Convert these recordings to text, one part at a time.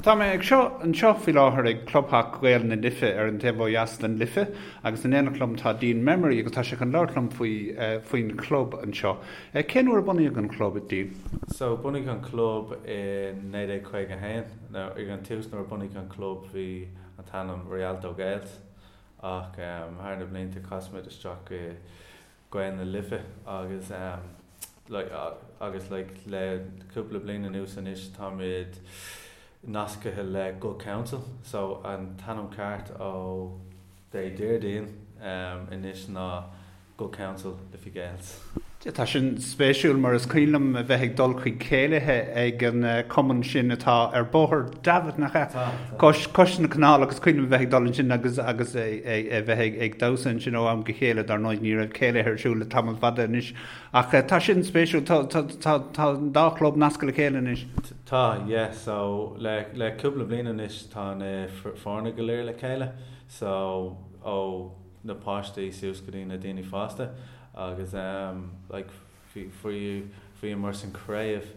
Tá mé ag seo anseo faoi láthair ag Clubtheach Ghaeil na Life ar an taobh ó dheas den Life agus in éineacht liom tá Dean Memory agus tá sé chun labhairt liom faoi faoin chlub anseo. Cén uair a bunaíodh an chlub, Dean? So bunaíodh an club i 1951. Now ag an tús nuair a bunaíodh an club bhí an t-ainm Rialto Gaels ach thar na blianta chas muid isteach i Gaeil na Life agus like agus like le cúpla bliain anuas anois táimid nascaithe le Good Counsel so an t-ainm ceart ó Dé Déardaoin anois ná Good Counsel Liffey Gaels. Tá sin spéisiúil mar is cuimhin liom a bheith ag dul chuig céilithe ag an cumann sin atá ar Bhóthar Davitt, nach ea? Cois, cois na canála agus cuimhin liom a bheith ag dul ansin agus, agus a bheith ag, ag damhsa ansin ó am go chéile, dar ndóigh ní raibh céilithe ar siúl le tamall fada anois. Ach tá sin spéisiúil, tá, tá, tá, tá an dá chlub nasctha le chéile anois. Tá, yeah, so le, le cúpla bliain anois tá na foirne go léir le chéile, so ó na páistí suas go dtí na daoine fásta agus like bhí, bhí, bhíomar san craobh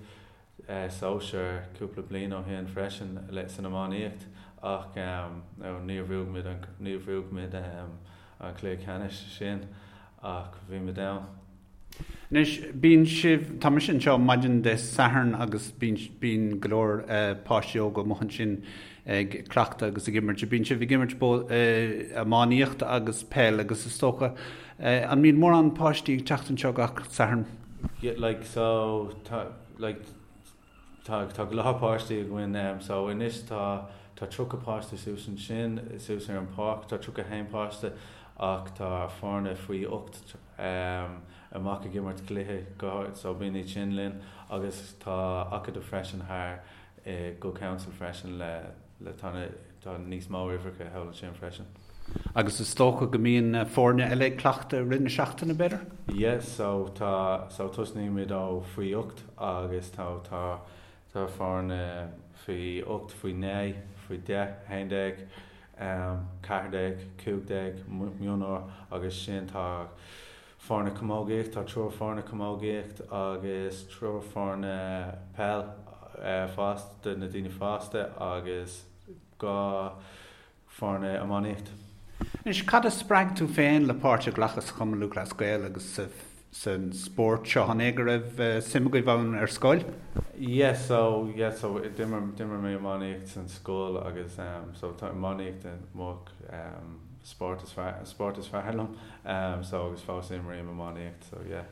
sóisear cúpla bliain ó shin freisin le san iománaíocht ach no níor bhuaigh muid an níor bhuaigh muid an cluiche ceannais sin ach bhí muid ann. Anois bíonn sibh, tá mise anseo maidin Dé Sathairn agus bíonn bíonn go leor páistí óga amuigh ansin ag cleachtadh agus ag imirt. Bíonn sibh ag imirt iománaíocht agus peil agus is dócha an mbíonn mórán páistí ag teacht anseo gach Satharn? Yeah like so tá like Tá tá go leor páistí againn em so anois tá tá 30 páiste suas ansin suas ar an páirc tá 31 páiste ach tá foirne faoi 8 em amach ag imirt cluiche go so bíonn iad sin linn agus tá acadamh freisin thar i Good Counsel freisin le le tá na tá níos mó uimhreacha thall ansin freisin. Agus is dócha go mbíonn foirne eile ag cleachtadh i rith na seachtaine, b'fhéidir? Yeah, so tá, so tosnaímid ó faoi 8 agus tá, tá, tá foirne faoi 8, faoi 9, faoi 10, 11, 14, 15, mionúr agus sin tá foirne camógaíocht, tá triúr foirne camógaíocht agus triúr foirne peil fásta, do na daoine fásta agus 2 foirne iománaíocht. Anois, cad a spreag tú féin le páirt a ghlacadh sa Chumann Lúthchleas Gael agus san spórt seo? An é go raibh suim agaibh ann ar scoil? Yeah, so, yeah, so d'imir, d'imir mé iománaíocht san scoil agus so tá iománaíocht mo spórt is fearr, spórt is fearr liom so agus fós imrím iománaíocht so yeah.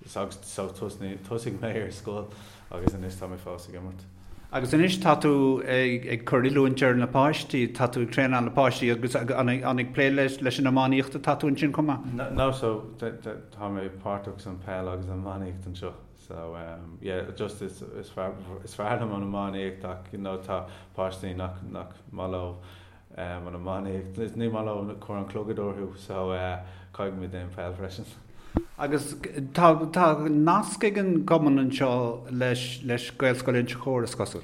So thosaigh mé ar scoil agus anois tá mé fós ag imirt. Agus anois tá tú ag cur oiliúint ar na páistí, tá tú ag traenáil na páistí agus an ag plé leis an iománaíocht atá tú ansin chomh maith? No, so tá mé páirteach san peil agus an iománaíocht anseo. So yeah, just is fearr is fearr liom an iománaíocht ach you know tá páistí nach nach maith leo an iománaíocht, ní maith leo cur an clogad orthu so caithfidh muid déanamh peil freisin. Agus tá tá nasc ag an gcumann anseo leis leis Gaelscoil Inse Chór is cosúil?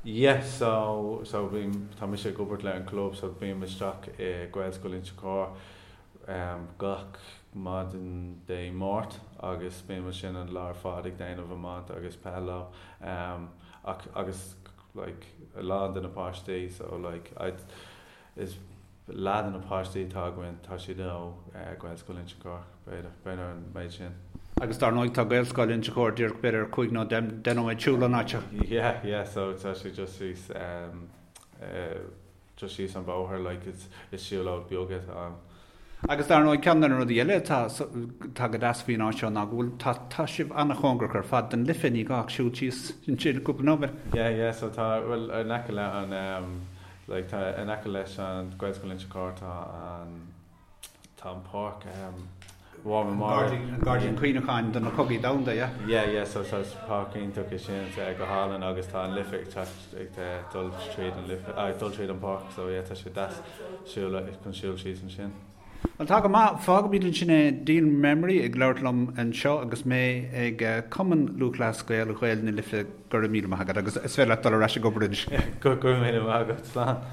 Yeah so so bím tá mise ag obair le an club so bím isteach i Gaelscoil Inse Chór gach maidin Dé Máirt agus bím ansin an lá ar fad ag déanamh iomáint agus peil leo ach agus like a lán de na páistí so like I is leath de na páistí atá againn tá siad ó Gaelscoil Inse Chór b'fhéidir b'fhéidir an méid sin. Agus dar ndóigh tá Gaelscoil Inse Chór díreach b'fhéidir 5 nó 10 nóiméad siúl ón áit seo. Yeah yeah so tá sé just síos um, uh, just síos an bóthar like is is siúlóid beag atá ann. Agus dar ndóigh ceann de na rudaí eile atá atá go deas faoin áit seo ná go bhfuil tá tá sibh an-chóngarach ar fad don Life, ní gá ach siúl síos ansin cúpla nóiméad. Yeah yeah so tá bhuel in aice le an um like tá in aice leis an Gaelscoil Inse Chór tá an tá an páirc um War Memorial. An Gairdín Cuimhneacháin do na Cogaí Domhanda, yeah? Yeah, yeah, so tá páirc iontach é sin, tá go hálainn agus tá an Life ag teacht ag dul tríd an Life, ag dul tríd an páirc, so yeah, tá sé deas siúl chun siúl síos ansin. Bhuel, tá go maith. Fágfaimid ansin é. Dean Memory ag labhairt liom anseo agus mé ag Cumann Lúthchleas Gael Ghaeil na Life. Go raibh míle maith agat agus is féidir leat dul ar ais ag obair anois. Go raibh míle maith agat. Slán.